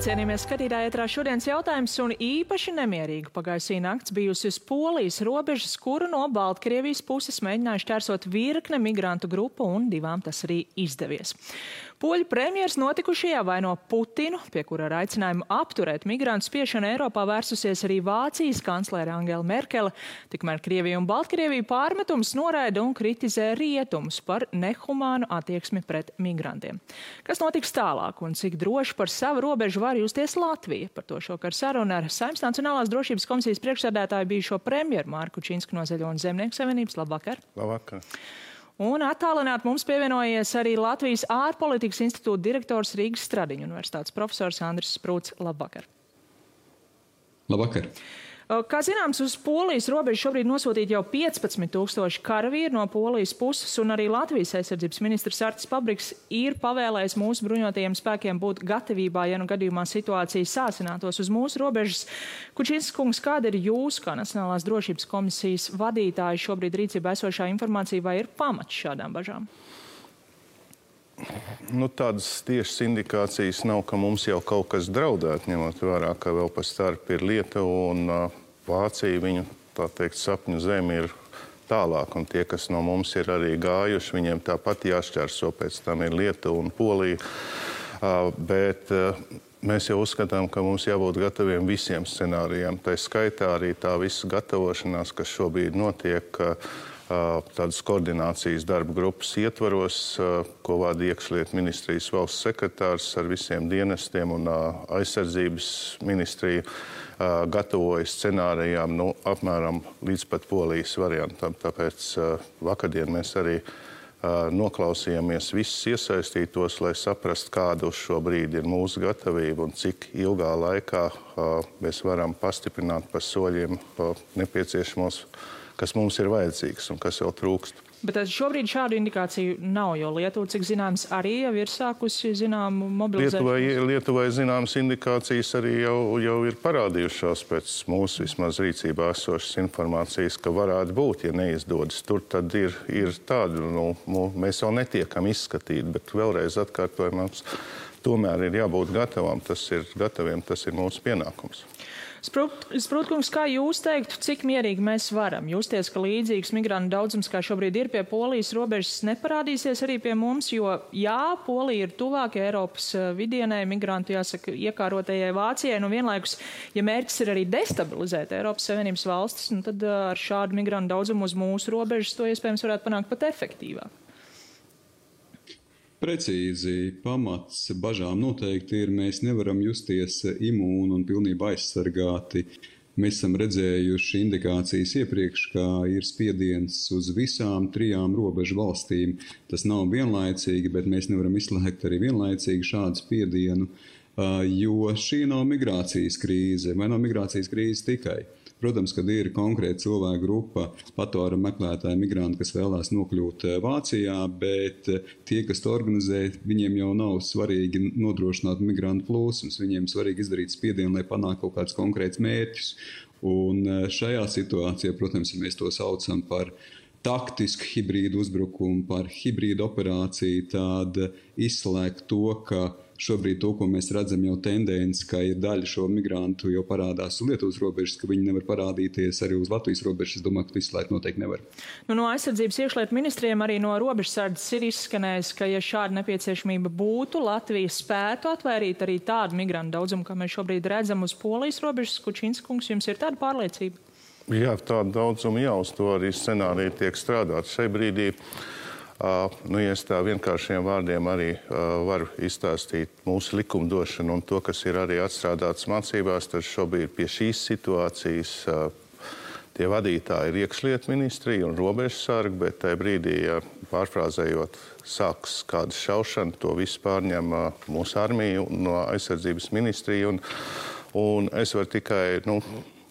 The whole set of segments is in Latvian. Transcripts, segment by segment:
Sveicināti, cienījamies skatītāji, ētrā šodienas jautājums un īpaši nemierīga pagājusī nakts bijusi uz Polijas robežas, kuru no Baltkrievijas puses mēģināja šķērsot virkne migrantu grupu un divām tas arī izdevies. Poļu premjers notikušajā vaino Putinu, pie kura ar aicinājumu apturēt migrantu spiešanu Eiropā vērsusies arī Vācijas kanclere Angela Merkele, tikmēr Krievija un Baltkrievija pārmetumus noraida un kritizē rietumus par nehumānu attieksmi pret migrantiem. Kas notiks tālāk un cik droši par savu robežu var justies Latvija? Par to šokar saruna ar Saeimas Nacionālās drošības komisijas priekšsēdētāju bijušo premjeru Marku Činsku no Zaļo un Zemnieku savienības. Labvakar! Labvakar! Un attālināt mums pievienojies arī Latvijas ārpolitikas institūta direktors Rīgas Stradiņu universitātes profesors Andris Sprūts. Labvakar! Labvakar! Kā zināms, uz Polijas robežu šobrīd nosūtīti jau 15,000 karavīri no Polijas puses, un arī Latvijas aizsardzības ministrs Artis Pabriks ir pavēlējis mūsu bruņotajiem spēkiem būt gatavībā, ja nu gadījumā situācija sāsinātos uz mūsu robežas. Kučinskas kungs, kāda ir jūsu, kā Nacionālās drošības komisijas vadītāja, šobrīd rīcībā esošā informācija, vai ir pamats šādām bažām? Tādas tiešas indikācijas nav, ka mums jau kaut kas draudētu, ņemot vērā, ka vēl pa starp ir Lietuva un Vācija, viņu, tā teikt, sapņu zemi ir tālāk, un tie, kas no mums ir arī gājuši, viņiem tāpat jāšķērso, pēc tam ir Lietuva un Polija, bet mēs jau uzskatām, ka mums jābūt gataviem visiem scenārijiem. Tā skaitā arī tā visa gatavošanās, kas šobrīd notiek, tādas koordinācijas darba grupas ietvaros, ko vada iekšlietu ministrijas valsts sekretārs ar visiem dienestiem un aizsardzības ministrija gatavojas scenārijām apmēram līdz pat Polijas variantam. Tāpēc vakardien mēs arī noklausījāmies visus iesaistītos, lai saprastu, kāda uz šo brīdi ir mūsu gatavība un cik ilgā laikā mēs varam pastiprināt pa soļiem nepieciešamos, kas mums ir vajadzīgs un kas vēl trūkst. Bet šobrīd šādu indikāciju nav, jo Lietuva, cik zināms, arī jau ir sākusi zināmu mobilizēšanos. Lietuvai zināmas indikācijas arī jau ir parādījušās pēc mūsu vismaz rīcībā esošas informācijas, ka varētu būt, ja neizdodas. Tur tad ir tādu, mēs vēl netiekam izskatīt, bet vēlreiz atkārtojam, mums tomēr ir jābūt gataviem, tas ir mūsu pienākums. Sprūtkungs, kā jūs teiktu, cik mierīgi mēs varam justies, ka līdzīgs migrantu daudzums, kā šobrīd ir pie Polijas robežas, neparādīsies arī pie mums, jo jā, Polija ir tuvāk Eiropas vidienē, migrantu, jāsaka, iekārotajai Vācijai, vienlaikus, ja mērķis ir arī destabilizēt Eiropas Savienības valstis, tad ar šādu migrantu daudzumu uz mūsu robežas to iespējams varētu panākt pat efektīvāk. Precīzi, pamats bažām noteikti ir, mēs nevaram justies imūni un pilnībā aizsargāti. Mēs esam redzējuši indikācijas iepriekš, ka ir spiediens uz visām 3 robežu valstīm. Tas nav vienlaicīgi, bet mēs nevaram izslēgt arī vienlaicīgi šādu spiedienu, jo šī nav migrācijas krīze, vai nav migrācijas krīze tikai. Protams, kad ir konkrēta cilvēka grupa, patvērumu meklētāji, migranti, kas vēlās nokļūt Vācijā, bet tie, kas to organizē, viņiem jau nav svarīgi nodrošināt migrantu plūsmas. Viņiem svarīgi izdarīt spiedienu, lai panāktu kaut kādus konkrētus mērķus. Un šajā situācijā, protams, ja mēs to saucam par taktisku hibrīdu uzbrukumu, par hibrīdu operāciju, tad izslēgt to, ka šobrīd to, ko mēs redzam jau tendenci, ka ir daļa šo migrantu jau parādās uz Lietuvas robežas, ka viņi nevar parādīties arī uz Latvijas robežas. Es domāju, ka to izslēgt noteikti nevar. No aizsardzības iekšlietu ministriem arī no robežsardzes ir izskanējis, ka, ja šāda nepieciešamība būtu, Latvija spētu atvairīt arī tādu migrantu daudzumu, kā mēs šobrīd redzam uz Polijas robežas. Kučinskas kungs, jums ir tāda pārliecība? Jā, tāda daudzuma jau uz to arī scenāriju tiek strādāt. Šai brīdī ja es tā vienkāršiem vārdiem arī varu izstāstīt mūsu likumdošanu un to, kas ir arī atstrādāts mācībās, tad šobrīd pie šīs situācijas tie vadītāji ir iekšlietu ministrija un robežsargi, bet tajā brīdī, pārfrāzējot, sāks kāda šaušana, to visu pārņem mūsu armija no aizsardzības ministrija. Un es varu tikai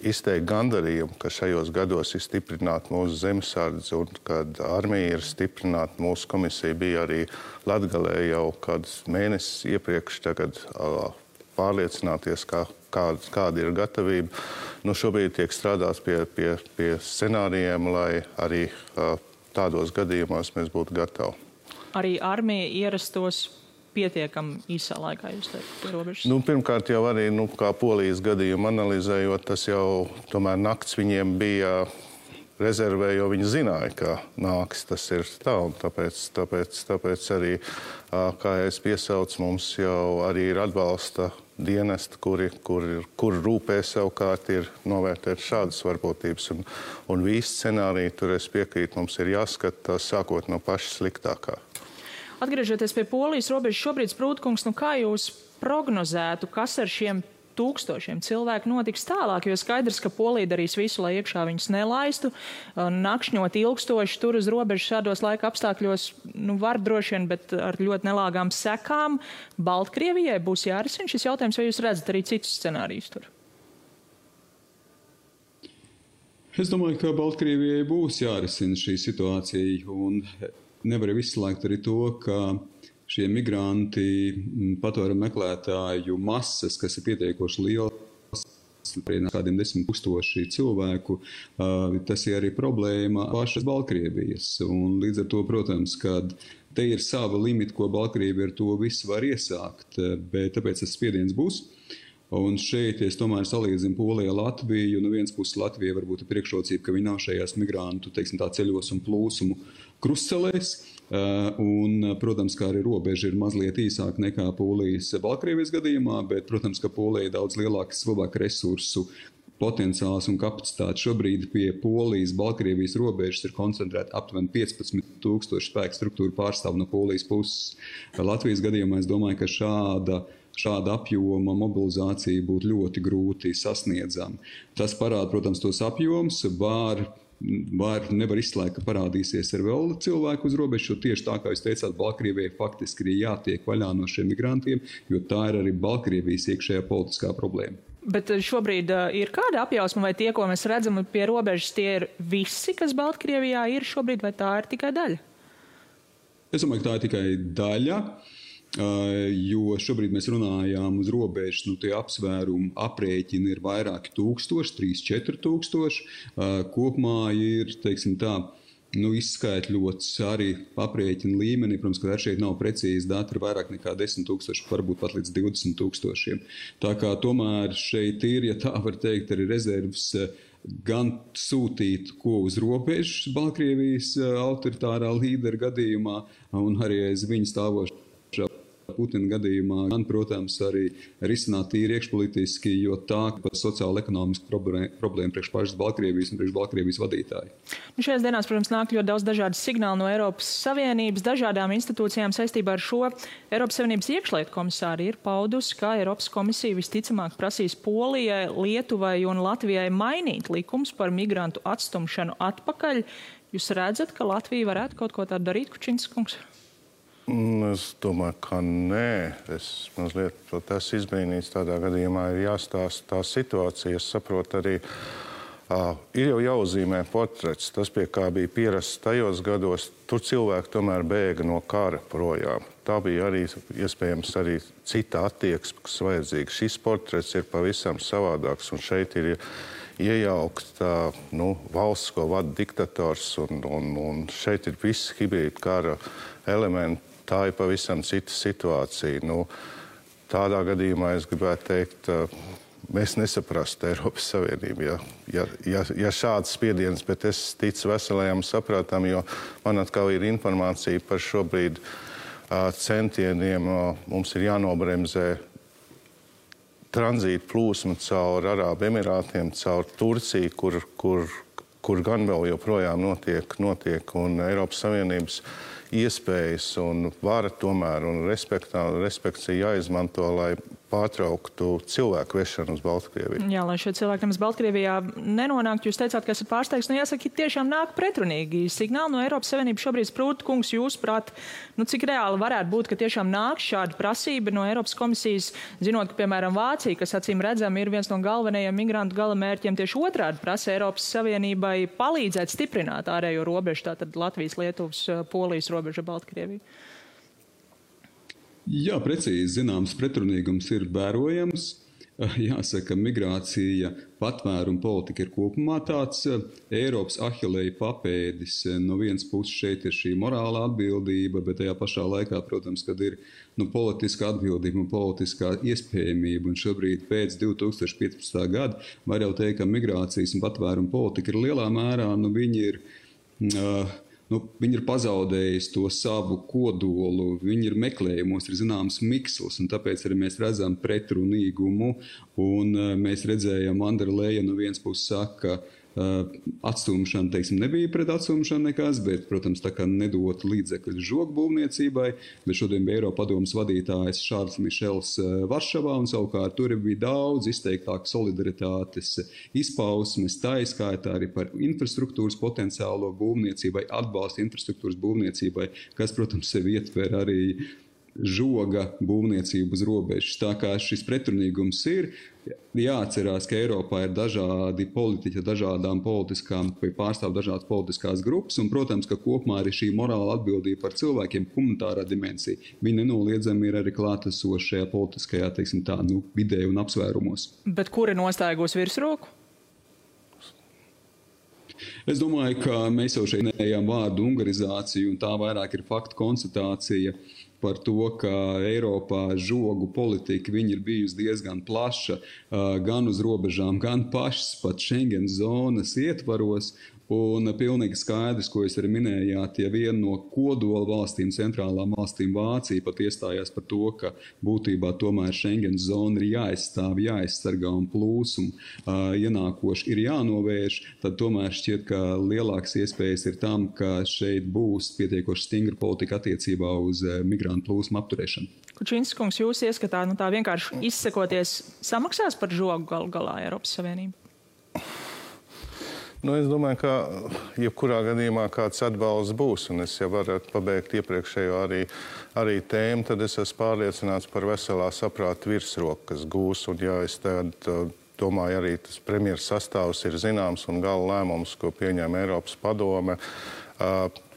izteikt gandarījumu, ka šajos gados ir stiprināta mūsu zemesardze un kad armija ir stiprināta. Mūsu komisija bija arī Latgalē jau kādus mēnesis iepriekš tagad pārliecināties, kāda ir gatavība. Šobrīd tiek strādāts pie scenārijiem, lai arī tādos gadījumos mēs būtu gatavi. Arī armija ierastos pietiekami īsā laikā, jūs teikt, pie robežas? Pirmkārt jau arī, kā Polijas gadījumu analizējot, tas jau tomēr nakts viņiem bija rezervē, jo viņi zināja, ka nāks tas ir tā, un tāpēc arī, kā es piesaucu, mums jau arī ir atbalsta dienesti, kur rūpē savukārt ir novērtēt šādas varbūtības. Un visi scenāriji, tur es piekrītu, mums ir jāskata sākot no paša sliktākā. Atgriežoties pie Polijas robežas, šobrīd, Sprūdkungs, kā jūs prognozētu, kas ar šiem tūkstošiem cilvēku notiks tālāk, jo skaidrs, ka Polija darīs visu, lai iekšā viņus nelaistu. Nakšņot ilgstoši tur uz robežas šādos laika apstākļos, var droši vien, bet ar ļoti nelāgām sekām. Baltkrievijai būs jārisina šis jautājums, vai jūs redzat arī citus scenārijus tur? Es domāju, ka Baltkrievijai būs jārisina šī situācija, un nevar izslēgt arī to, ka šie migranti, patvērumu meklētāju masas, kas ir pietiekoši liels, kādiem 10 000 cilvēku, tas ir arī problēma pašas Baltkrievijas. Un līdz ar to, protams, kad te ir sava limita, ko Baltkrievija ar to visu var iesākt, bet tāpēc tas spiediens būs. Un šeit es tomēr salīdzinu Poliju ar Latviju. No vienas puses Latvija varbūt ir priekšrocība, ka viņi nav šajās migrantu, ceļos un plūsumu krustcelēs. Un, protams, kā arī robeža ir mazliet īsāka nekā Polijas Baltkrievijas gadījumā, bet, protams, ka Polija ir daudz lielāks cilvēku resursu potenciāls un kapacitāte. Šobrīd pie Polijas Baltkrievijas robežas ir koncentrēta aptuveni 15 000 spēku struktūru pārstāvu no Polijas puses. Latvijas gadījumā es domāju, ka šāda apjoma mobilizācija būtu ļoti grūti sasniedzama. Tas parāda, protams, tos apjoms, nevar izslēgt, ka parādīsies ar vēl cilvēku uz robežu, jo tieši tā, kā jūs teicāt, Baltkrievijai faktiski ir jātiek vaļā no šiem migrantiem, jo tā ir arī Baltkrievijas iekšējā politiskā problēma. Bet šobrīd ir kāda apjausma, vai tie, ko mēs redzam pie robežas, tie ir visi, kas Baltkrievijā ir šobrīd, vai tā ir tikai daļa? Es domāju, ka tā ir tikai daļa. Jo šobrīd mēs runājām uz robežas, tie apsvērumi aprēķini ir vairāki tūkstoši, 3-4 tūkstoši. Kopumā ir, teiksim tā, izskaitļots arī aprēķina līmenī. Protams, ka šeit nav precīzi dati, ir vairāk nekā 10 000, varbūt pat līdz 20 000. Tā kā tomēr šeit ir, ja tā var teikt, arī rezerves gan sūtīt, ko uz robežas Baltkrievijas autoritārā līdera gadījumā, un arī aiz viņa stāvošā Putina gadījumā, gan, protams, arī risināt tīri iekšpolitiski, jo tā par sociālo-ekonomisku problēmu priekš pašas Baltkrievijas un priekš Baltkrievijas vadītāji. Šajās dienās, protams, nāk ļoti daudz dažādas signāli no Eiropas Savienības, dažādām institūcijām saistībā ar šo. Eiropas Savienības iekšlietu komisāri ir paudusi, ka Eiropas komisija visticamāk prasīs Polijai, Lietuvai un Latvijai mainīt likums par migrantu atstumšanu atpakaļ. Jūs redzat, ka Latvija varētu kaut ko tādu darīt, Kučinskas kungs? Es domāju, ka nē. Es mazliet esmu izbrīnīts. Tādā gadījumā ir jāstāsta tā situācija. Es saprotu arī, ir jau jāuzzīmē portrets. Tas, pie kā bija pierasts tajos gados, tur cilvēki tomēr bēga no kara projām. Tā bija arī iespējams arī cita attieksme, kas vajadzīga. Šis portrets ir pavisam savādāks, un šeit ir iejaukt valsts, ko vada diktators, un šeit ir viss hibrīda kara elementi. Tā ir pavisam cita situācija. Tādā gadījumā es gribētu teikt, mēs nesaprastu Eiropas Savienību, ja šāds spiediens, bet es ticu veselajam saprātam, jo man atkal ir informācija par šobrīd centieniem. Mums ir jānobremzē tranzīta plūsma caur Arābu Emirātiem, caur Turciju, kur gan vēl joprojām notiek un Eiropas Savienības iespējas un vara tomēr un respekts ir jāizmanto, lai pārtrauktu cilvēku vešanu uz Baltkrieviju. Jā, lai šie cilvēki nemaz Baltkrievijā nenonāktu. Jūs teicāt, ka esat pārsteigts. Jāsaka, tiešām nāk pretrunīgi signāli no Eiropas Savienības. Šobrīd, Sprūdkungs, jūs prāt, cik reāli varētu būt, ka tiešām nāk šāda prasība no Eiropas komisijas, zinot, ka, piemēram, Vācija, kas acīm redzam, ir viens no galvenajiem migrantu galamērķiem, tieši otrādi prasa Eiropas Savienībai palīdzēt stiprināt ārējo robežu, tātad Latvijas, Lietuvas, Polijas robežu Baltkrieviju. Jā, precīzi zināms pretrunīgums ir vērojams. Jāsaka, migrācija, patvēruma politika ir kopumā tāds Eiropas ahilēja papēdis. No vienas puses šeit ir šī morāla atbildība, bet tajā pašā laikā, protams, kad ir politiska atbildība un politiskā iespējamība. Un šobrīd pēc 2015. gada var jau teikt, ka migrācijas un patvēruma politika ir lielā mērā, viņi ir pazaudējuši to savu kodolu, viņi ir meklējumos, ir zināms miksls, un tāpēc arī mēs redzam pretrunīgumu, un mēs redzējām, Andra Leja no vienas puses saka, atstumšana, teiksim, nebija pret atstumšanu nekas, bet, protams, tā kā nedot līdzekļu žogbūvniecībai, bet šodien bija Eiropadomes vadītājs Šārls Mišels Varšavā, un savukārt tur bija daudz izteiktāk solidaritātes izpausmes, tā izskaitā arī par infrastruktūras potenciālo būvniecībai, atbalstu infrastruktūras būvniecībai, kas, protams, sevi ietver arī žoga būvniecību uz robežas. Tā kā šis pretrunīgums ir, jāatcerās, ka Eiropā ir dažādi politiķi, dažādām politiskām, pārstāv dažādas politiskās grupas, un, protams, ka kopumā arī šī morāla atbildība par cilvēkiem, humanitārā dimensija, viņa nenoliedzami ir arī klātesoša šajā politiskajā, teiksim tā, vidē un apsvērumos. Bet kuri nostāja virsroku? Es domāju, ka mēs jau šeit minējām vārdu ungarizāciju, un tā vairāk ir faktu konstatācija par to, ka Eiropā žogu politika viņa ir bijusi diezgan plaša, gan uz robežām, gan pašas pat Schengen zonas ietvaros. Un pilnīgi skaidrs, ko jūs arī minējāt, ja viena no kodola valstīm, centrālām valstīm Vācija pat iestājās par to, ka būtībā tomēr Schengen zona ir jāaizstāv, jāaizsargā un plūsumu ienākoši ir jānovērš, tad tomēr šķiet, ka lielākas iespējas ir tam, ka šeit būs pietiekoši stingra politika attiecībā uz migrantu plūsmu apturēšanu. Kučinskis kungs, jūs ieskatā, tā vienkārši izsekoties samaksās par žogu galu galā Eiropas Savienību? Es domāju, ka jebkurā gadījumā kāds atbalsts būs, un es jau varētu pabeigt iepriekšējo arī tēmu, tad es esmu pārliecināts par veselā saprāta virsroku, kas gūs, un es domāju, arī tas premjeras sastāvs ir zināms, un gala lēmums, ko pieņem Eiropas padome,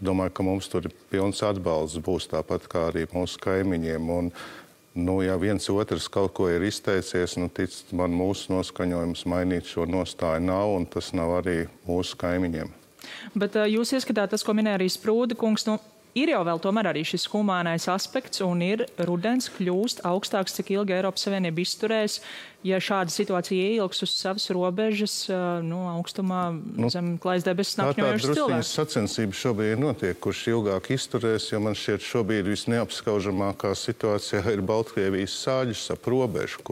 domāju, ka mums tur pilns atbalsts būs, tāpat kā arī mūsu kaimiņiem, un ja viens otrs kaut ko ir izteicies, ticat man, mūsu noskaņojums mainīt šo nostāju nav, un tas nav arī mūsu kaimiņiem. Bet jūs ieskatāt tas, ko minēja arī Sprūda kungs, ir jau vēl tomēr arī šis humānais aspekts, un ir rudens kļūst augstāks, cik ilgi Eiropas Savienība izturēs, ja šāda situācija ieilgs uz savas robežas, augstumā zem klājas debesis nakņojošas cilvēks. Tā drusciņas sacensības šobrīd notiek, kurš ilgāk izturēs, jo man šķiet šobrīd visneapskaužamākā situācijā ir Baltkrievijas sāģis ap robežu,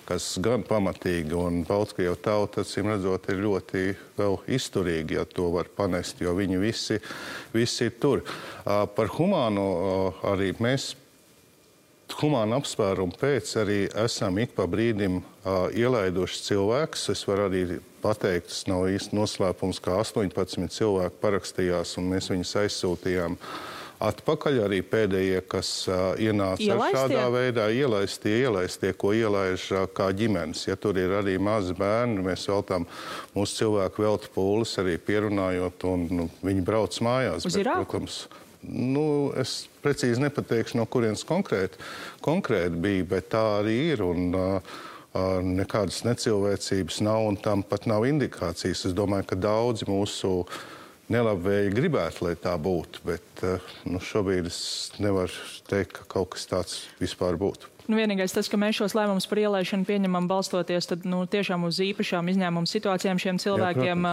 kas gan pamatīgi, un Baltkrievu tauta, acīm redzot, ir ļoti vēl izturīgi, ja to var panest, jo viņi visi ir tur. Par humāno arī mēs humāna apsvērumu pēc arī esam ik pa brīdim ielaiduši cilvēkus. Es varu arī pateikt, tas nav īsti noslēpums, ka 18 cilvēki parakstījās, un mēs viņus aizsūtījām atpakaļ. Arī pēdējie, kas ienāca šādā veidā, ielaistie, ko ielaiž kā ģimenes. Ja tur ir arī mazi bērni, mēs veltām mūsu cilvēku veltu pūles arī pierunājot, un viņi brauc mājās. Uz Irāku? Es precīzi nepateikšu, no kurienes konkrēti bija, bet tā arī ir, un nekādas necilvēcības nav, un tam pat nav indikācijas. Es domāju, ka daudzi mūsu nelabvēji gribētu, lai tā būtu, bet šobrīd es nevaru teikt, ka kaut kas tāds vispār būtu. Vienīgais tas, ka mēs šos lēmumus par ielaišanu pieņemam balstoties tiešām uz īpašām izņēmumu situācijām šiem cilvēkiem.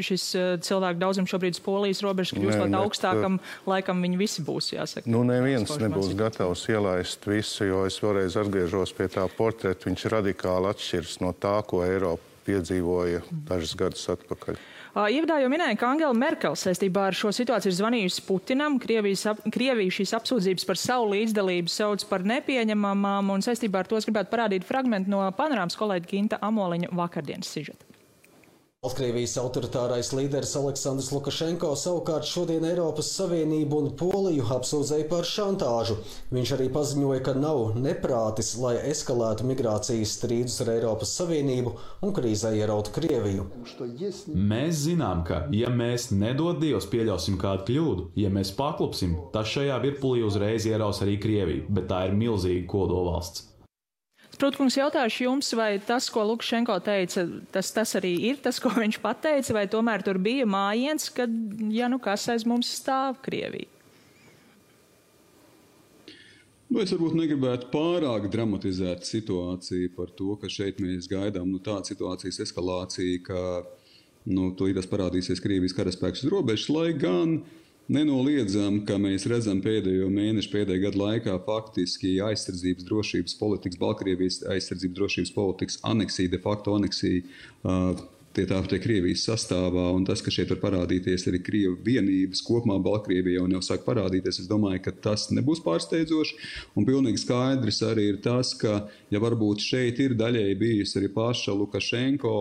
Šis cilvēku daudzums šobrīd uz Polijas robežas kļūstot augstākam, laikam viņi visi būs, jāsaka. Neviens nebūs gatavs ielaist visu, jo es vēlreiz atgriežos pie tā portreta. Viņš radikāli atšķiras no tā, ko Eiropa piedzīvoja dažus gadus atpakaļ. Ievadā jau minēja, ka Angela Merkel saistībā ar šo situāciju ir zvanījusi Putinam. Krievija šīs apsūdzības par savu līdzdalību sauc par nepieņemamām, un saistībā ar to es gribētu parādīt fragmentu no Panorāmas kolēģa Ginta Amoliņa vakardienas sižeta. Baltkrievijas autoritārais līderis Aleksandrs Lukašenko savukārt šodien Eiropas Savienību un Poliju apsūdzēja par šantāžu. Viņš arī paziņoja, ka nav neprātis, lai eskalētu migrācijas strīdus ar Eiropas Savienību un krīzē ierautu Krieviju. Mēs zinām, ka, ja mēs nedod Dievs pieļausim kādu kļūdu, ja mēs paklupsim, tas šajā virpulī uzreiz ieraus arī Krieviju, bet tā ir milzīga kodolvalsts. Sprūdkungs, jautāšu jums, vai tas, ko Lukašenko teica, tas arī ir tas, ko viņš pateica, vai tomēr tur bija mājiens, kad, kas aiz mums stāv Krievija? Es varbūt negribētu pārāk dramatizēt situāciju par to, ka šeit mēs gaidām tādu situācijas eskalāciju, ka tūlīt parādīsies Krievijas karaspēks uz robežas, lai gan nenoliedzam, ka mēs redzam pēdējo mēnešu, pēdējā gada laikā faktiski aizsardzības drošības politikas, Baltkrievijas aizsardzības drošības politikas aneksija, de facto aneksija tie Krievijas sastāvā, un tas, ka šeit var parādīties arī Krievu vienības kopumā Baltkrievijā un jau sāk parādīties, es domāju, ka tas nebūs pārsteidzoši, un pilnīgi skaidrs arī ir tas, ka, ja varbūt šeit ir daļēji bijusi arī paša Lukašenko,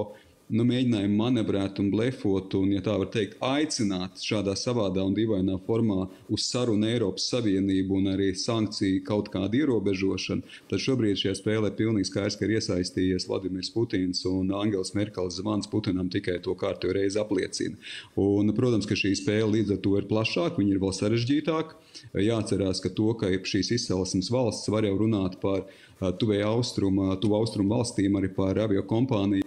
mēģinājumu manevrēt un blefot un, ja tā var teikt, aicināt šādā savādā un dīvainā formā uz sarunu Eiropas Savienību un arī sankciju kaut kādu ierobežošanu, tad šobrīd šajā spēlē pilnīgi skaidrs, ka ir iesaistījies Vladimirs Putins un Angels Merkeles zvans Putinam tikai to kārtējo reizi apliecina. Un, protams, ka šī spēle līdz ar to ir plašāka, viņa ir vēl sarežģītāka. Jāatcerās, ka to, ka šīs izcelsmes valsts var jau runāt par tuvu austrumu valstīm, arī par aviokompāniju,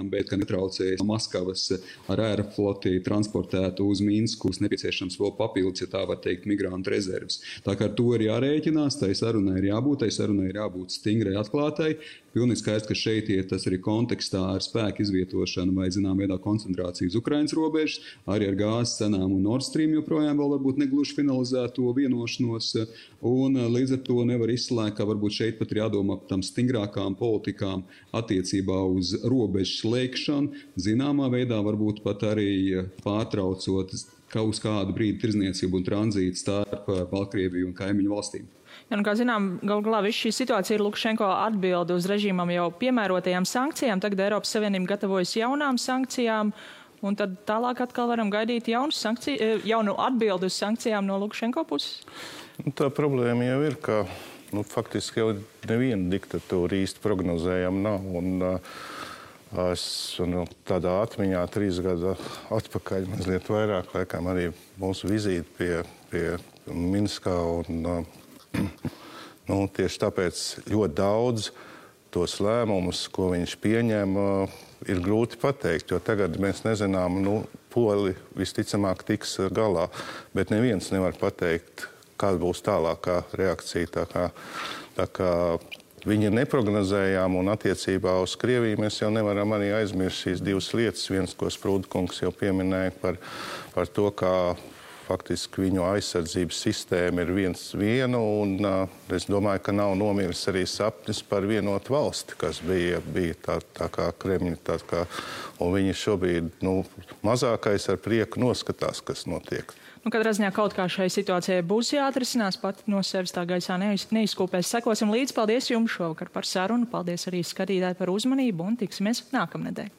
bet, ka netraucējas Maskavas ar aerofloti transportētu uz Minsku, nepieciešams vēl papildus, ja tā var teikt, migrantu rezerves. Tā kā ar to ir jārēķinās, tai sarunai ir jābūt stingrai atklātai. Pilnīgi skaidrs, ka šeit ir tas arī kontekstā ar spēku izvietošanu vai, zinām, veidā koncentrāciju uz Ukrainas robežas, arī ar gāzes cenām un Nord Stream joprojām vēl varbūt negluži finalizēto vienošanos, un līdz ar to nevar izslēgt, ka varbūt šeit pat ir jādomā par tam stingrākām politikām attiecībā uz robežu slēgšanu, zināmā veidā varbūt pat arī pārtraucot uz kādu brīdi tirdzniecību un tranzītu starp Baltkrieviju un kaimiņu valstīm. Kā zinām, galu galā viss šī situācija ir Lukašenko atbilde uz režīmam jau piemērotajām sankcijām. Tagad Eiropas Savienība gatavojas jaunām sankcijām, un tad tālāk atkal varam gaidīt jaunu atbildi uz sankcijām no Lukašenko puses? Tā problēma jau ir, ka faktiski jau neviena diktatūra īsti prognozējama nav. Un es tādā atmiņā 3 gadu atpakaļ mazliet vairāk, laikam arī mūsu vizīti pie Minskā un tieši tāpēc ļoti daudz tos lēmumus, ko viņš pieņem, ir grūti pateikt, jo tagad mēs nezinām, Poli visticamāk tiks galā, bet neviens nevar pateikt, kāda būs tālākā reakcija. Tā kā viņi ir neprognozējām, un attiecībā uz Krieviju mēs jau nevaram arī aizmirst šīs 2 lietas. Viens, ko Sprūdkungs jau pieminēja par to, kā faktiski viņu aizsardzības sistēma ir viena, un es domāju, ka nav nomiris arī sapnis par vienotu valsti, kas bija tā kā Kremļa. Un viņi šobrīd mazākais ar prieku noskatās, kas notiek. Katrā ziņā kaut kā šai situācijai būs jāatrisinās, pat no sevis tā gaisā neizkūpēs. Sekosim līdzi. Paldies jums šovakar par sarunu. Paldies arī skatītāji par uzmanību un tiksimies nākamnedēļ.